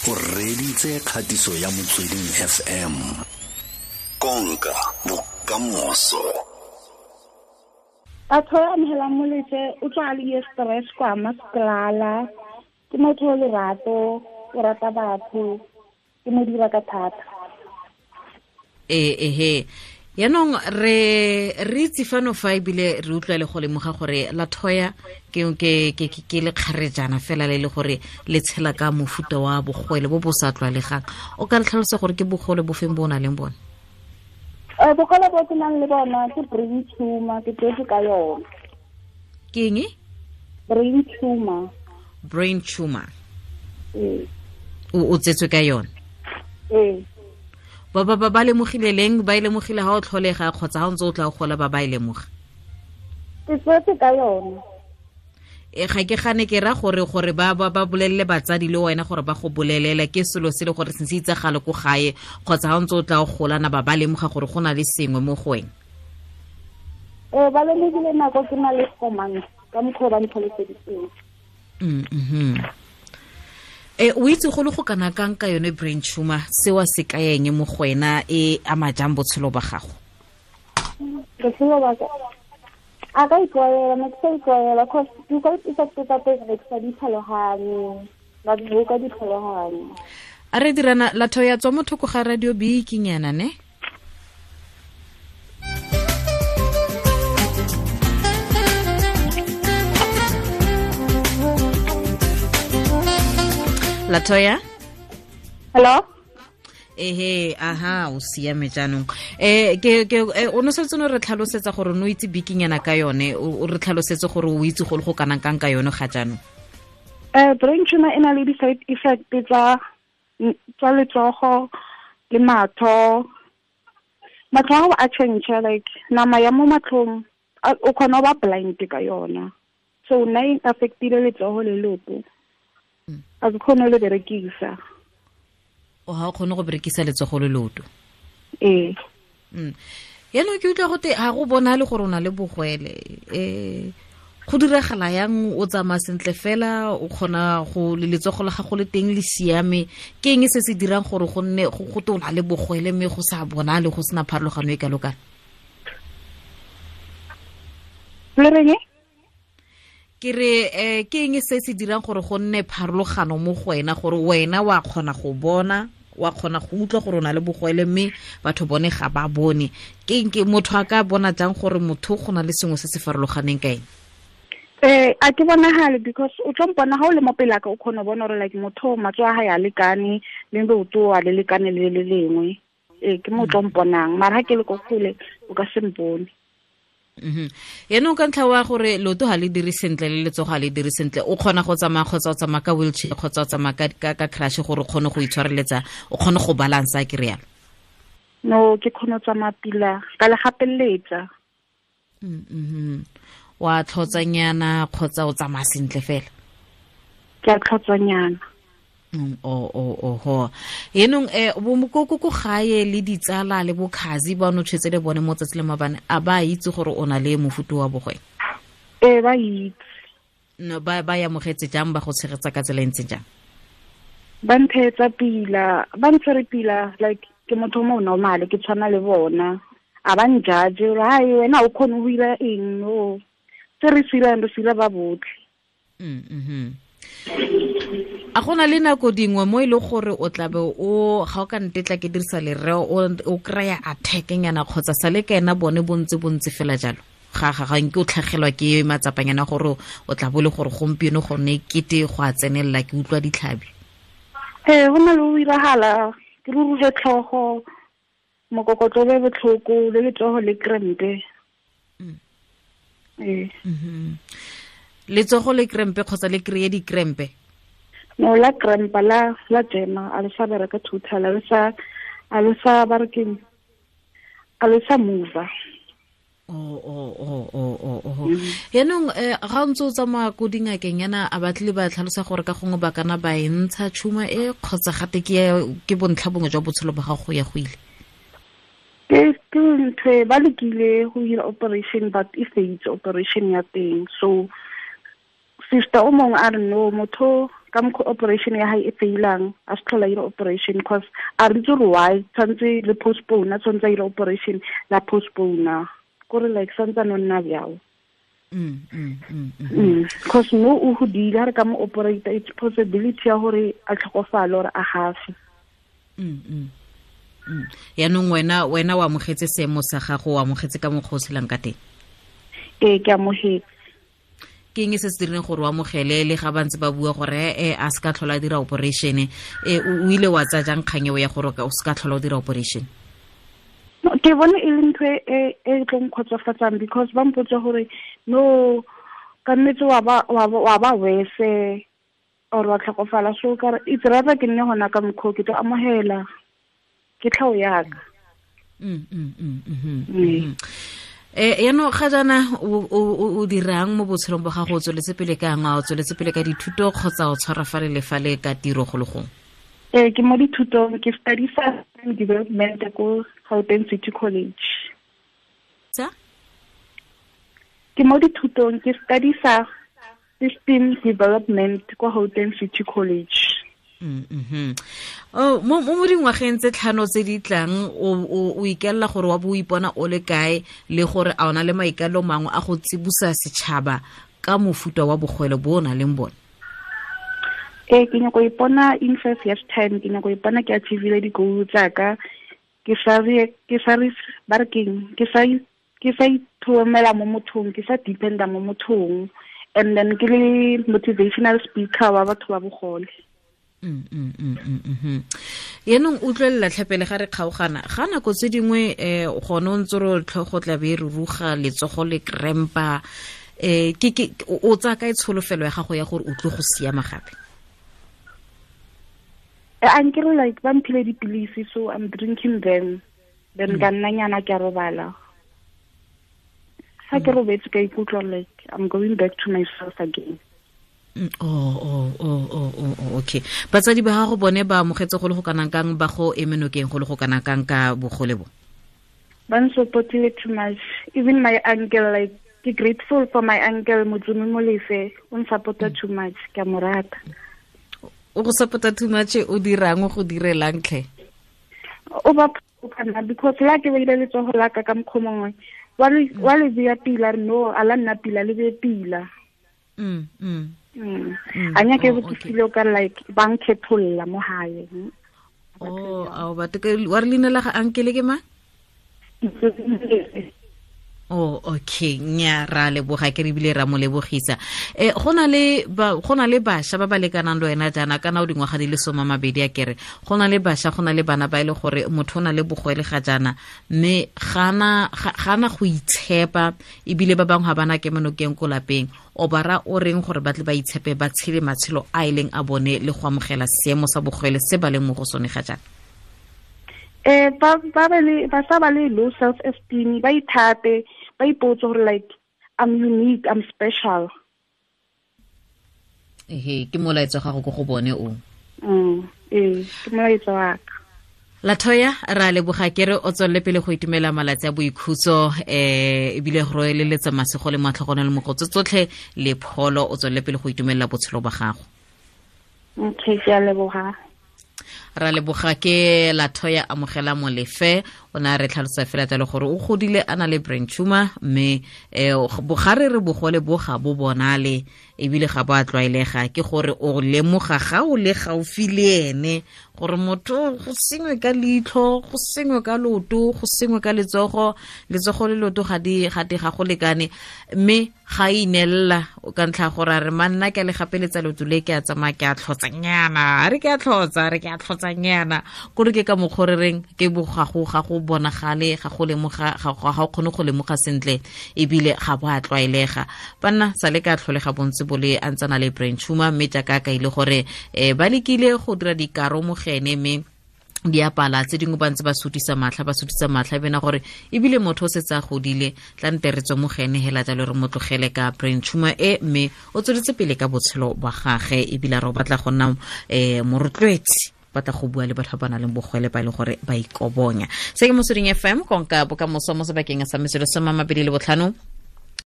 O reditse kgatiso ya Motsweding FM. Konka bokamoso. Batho ba amogelang moletse o tswa a le stress kwa masklala. Ke motho o lerato, o rata batho, ke mo dira ka thata. Ehe. Yaanong re itse fano fa ebile re utlwa le go lemoga gore Latoya ke lekgarejana fela le le gore le tshela ka mofuta wa bogole bo bo sa tlwaelegang. O ka re tlhalosa gore ke bogole bo feng bo o nang le bone? Bogole bo ke nang le bona ke brain tumor, ke tsetse ka yona. Ke eng? Brain tumor. Brain tumor. O tsetswe ka yone? Ee. Ba lemogile leng? Ba e lemogile ha o tlholega kgotsa ha o ntse o tla o gola ba e lemoga? Ke tsetse ka yone. Ga ke gane ke ra gore ba bolelele batsadi le wena gore ba go bolelele ke selo se le gore se se itsagale ko gae kgotsa ha o ntse o tla o golana ba lemoga gore go na le sengwe mo go wena. Ba lemogile nako ke na le 4 months ka mokgwa ba ntlhaloseditseng. O itse go le go kana kang ka yone brain tumor, seo se ka eng mo go wena, e ama jang botshelo ba gago? Botshelo ba ka a ka itlwaela, ne ke sa itlwaela cause di-side effects tsa teng ne ke sa di tlhaloganye, ba di ka di tlhaloganye. A re dirana Latoya tswa mo thoko ga radio bikinyana ne? Latoya? Hello? Ehe, aha, o siame jaanong. Ke o no setse no re tlhalosetsa gore no itse bikinyana ka yone, o re tlhalosetse gore o itse go le go kanang kang ka yone ga jaanong. Brain tumor e na le di-side effect tsa letsogo le matlho. Matlho a change, like nama ya mo matlhong o kgona go ba blind ka yona. So nna e affectile letsogo le leoto. A ke kgone le berekisa. O ha o kgone go berekisa letsogo le leoto? Ee. Yaanong ke utlwa gote ga go bonale gore o na le bogwele. Go diragala yang o tsamaya sentle fela, o kgona go le letsogo la gago le teng le siame? Ke eng se se dirang gore go nne go te o na le bogwele mme go sa bonale, go sena pharologano e kalo-kalo? Le reng? Ke re ke eng se se dirang gore go nne pharologano mo go wena, gore wena wa kgona go bona, wa kgona go utlwa gore o na le bogwele mme batho bone ga ba bone? Ke eng ke motho a ka bona jang gore motho go na le sengwe se se farologaneng ka eng? A ke bonagale because o tlo mpona ha o le mo pele ka o kgona go bona gore like motho matsogo a hae a lekane le leoto a le lekane le le lengwe. Ke mo tlo mponang, mara ha ke le ko kgole o ka se mpone. Yaanong ka ntlha wa gore leoto ga le dire sentle le letsogo ga le dire sentle, o kgona go tsamaya kgotsa o tsamaya ka wheelchair kgotsa o tsamaya ka crash gore o kgone go itshwareletsa, o kgone go balansa, ke rialo? No, ke kgone go tsamaya pila ka le gapeletsa. Wa tlhotsanyana kgotsa o tsamaya sentle fela? Ke a tlhotsanyana. Oho. Yaanong bo ko gae le ditsala le bokhazi ba no tshwetse le bone mo tsatsi le mabane, a ba itse gore o na le mofuta wa bogwele? Ee, ba itse. No, ba amogetse jang, ba go tshegetsa ka tsela e ntseng jang? Ba ntshegetsa pila, ba ntshwere pila, like ke motho mo normal, ke tshwana le bona. A ba njudge gore hai wena o kgone go dira eng, no. Se re sirang re sira ba botlhe. A gona le nako dingwe mo e le gore o tlabe o ga o ka ntetla ke dirisa lereo o kry-a attack-nyana kgotsa sa le ka ena bone bontse fela jalo? Ga nke o tlhagelwa ke matsapanyana gore o tla bo le gore gompieno gone kete go a tsenelela, ke utlwa ditlhabi? Go na le go iragala, ke ruruge tlhogo, mokokotlo be botlhoko, le letsogo le krempe. Letsogo le krempe kgotsa le kry-e dikrempe? No, la krempa, la jema, a le sa bereka total, a le sa ba re keng, a le sa mova. Oh. Yaanong ga o ntse o tsamaya ko dingakeng yana, a batlile ba tlhalosa gore ka gongwe ba kana ba e ntsha tšhuma e kgotsa gate ke bontlha bongwe jwa botshelo ba gago go ya go ile? Ke ntho e ba lekile go dira operation, but e failed operation ya teng. So sister o mongwe a re no, motho Ka mokgwa operation ya hae e failang, a se tlhola ira operation because a re itse gore why tshwanetse le postpone, a tshwanetse a ira operation la postpone. Kore like santse no nna bjao. Because no o hodile ha re ka mo operate, it's possibility ya gore a tlhokofale or a gafe. Yaanong wena o amogetse seemo sa gago, o amogetse ka mokgwa o tshelang ka teng? Ee, ke amogetse. Ke eng se se dirileng gore o amogele le ga ba ntse ba bua gore a se ka tlhola a dira operation? O ile wa tsaya jang kgang eo ya gore o se ka tlhola o dira operation? Ke bone e le ntho e e tlo nkgotsofatsang because ba mpotsa gore no ka nnete wa ba wese or wa tlhokofala, so ka re it's rather ke nne gona ka mokgwa ke tlo amogela ke tlhao yaka. Yaanong ga jaana o dirang mo botshelong ba gago? O tsweletse pele ka eng? A o tsweletse pele ka dithuto kgotsa o tshwara fale le fale ka tiro go le gongwe? Ee, ke mo dithutong, ke study development ko Gauteng City College. Tsa? Ke mo dithutong, ke study system development ko Gauteng City College. Oh, mo dingwageng tse 5 tse di tlang o ikelela gore wa bo o ipona o le kae, le gore a ona le maikalo mangwe a go tsibusa setšhaba ka mofuta wa bogwele bo o nang le bone? Ee, ke nyako ipona in 5 years time, ke nyako ipona ke achievile di-goal tsaka, ke sa ithomela mo mothong, ke sa dependa mo mothong, and then ke le motivational speaker wa batho ba bogole. Yaanong utlwelela tlhapele ga re kgaogana ga nako tse dingwe gone o ntse re tlhogo tla be re ruga letsogo le krempa, ke o tsaya kae tsholofelo ya gago ya gore o tlo go siama gape? Ankere like ba mphile dipilisi, so I'm drinking them, then ka nna nyana ke a robala. Ga ke robetse ka ikutlwa like I'm going back to myself again. Oh, okay. Batsadi ba gago bone ba amogetse go le go kanang kang, ba go eme nokeng go le go kanang kang ka bogole bo? Ba nsupportile too much. Even my uncle, like, ke grateful for my uncle Motsumi Molefe, o nsupporta too much, ke a mo rata. O go supporta too much, o dirang, o go direlang tlhe? O ba phana because la ke beile letsogo la ka ka mokgwa mongwe, wa le beya pila, no, a la nna pila, le beye pila. A nyake go feel ka like ba nkhetholla mo hae. Oh, a ba wa re leina la ga uncle ke ma? Oh, okay, nya ra leboga ke re bile ra mo lebogisa. Go na le basha ba ba lekanang le wena jaana, kana o dingwaga di le 20 a kere. Go na le basha, go na le bana ba ile gore motho o na le bogwele ga jaana, mme gana go itshepa, ebile ba bangwe ga bana ke menokeng ko lapeng. O bara o reng gore ba tle ba itshepe, ba tshele matshelo a e leng a bone le go amogela seemo sa bogwele se ba leng mo go sone ga jaana? Ba sa ba le low self esteem, ba ithate, ba ipotse gore like I'm unique, I'm special. Ehe, ke molaetsa gago go go bone o. Ee, ke molaetsa wa ka. Latoya, ra leboga ke re o tswelele pele go itumela malatsi a boikhutso, ebile go roeleletsa masego le matlhogonelo le mogotso tsotlhe le pholo, o tswelele pele go itumelela botshelo ba gago. Okay, ke a leboga. Ra leboga ke Latoya Amogela Molefe, o na re tlhalosa fela jalo gore o godile a na le brain tumor, mme bogare re bogole bo ga bo bonale ebile ga bo a tlwaelega, ke gore o lemoga ga o le gaufi le ene gore motho go sengwe ka leitlho, go sengwe ka loto, go sengwe ka letsogo, letsogo le loto ga di ga go lekane, mme ga inelela ka ntlha gore a re manna ke le gapeletsa loto le ke a tsamaya ke a tlhotsanyana, a re ke a tlhotsa, re ke a tlhotsanyana, kore ke ka mokgwa re reng ke bogago ga go bonagale, ga go lemoga, ga o kgone go lemoga sentle, ebile ga bo a tlwaelega. Banna sa le ka tlholega bontse bo le a ntsana le brain tumor, mme jaaka ka ile gore ba lekile go dira dikaro mogene, mme di apala tse dingwe ba ntse ba sutisa matlha bena gore ebile motho o setse a godile, tla nte re tswe mogene hela jalo re mo tlogele ka brain tumor e, mme o tsweletse pele ka botshelo ba gage, ebile re o batla go nna morotloetsi, batla go bua le batho ba ba nang le bogwele ba e leng gore ba ikobonya. Se ke Motsweding FM, konka bokamoso mo sebakeng sa metsotso 25.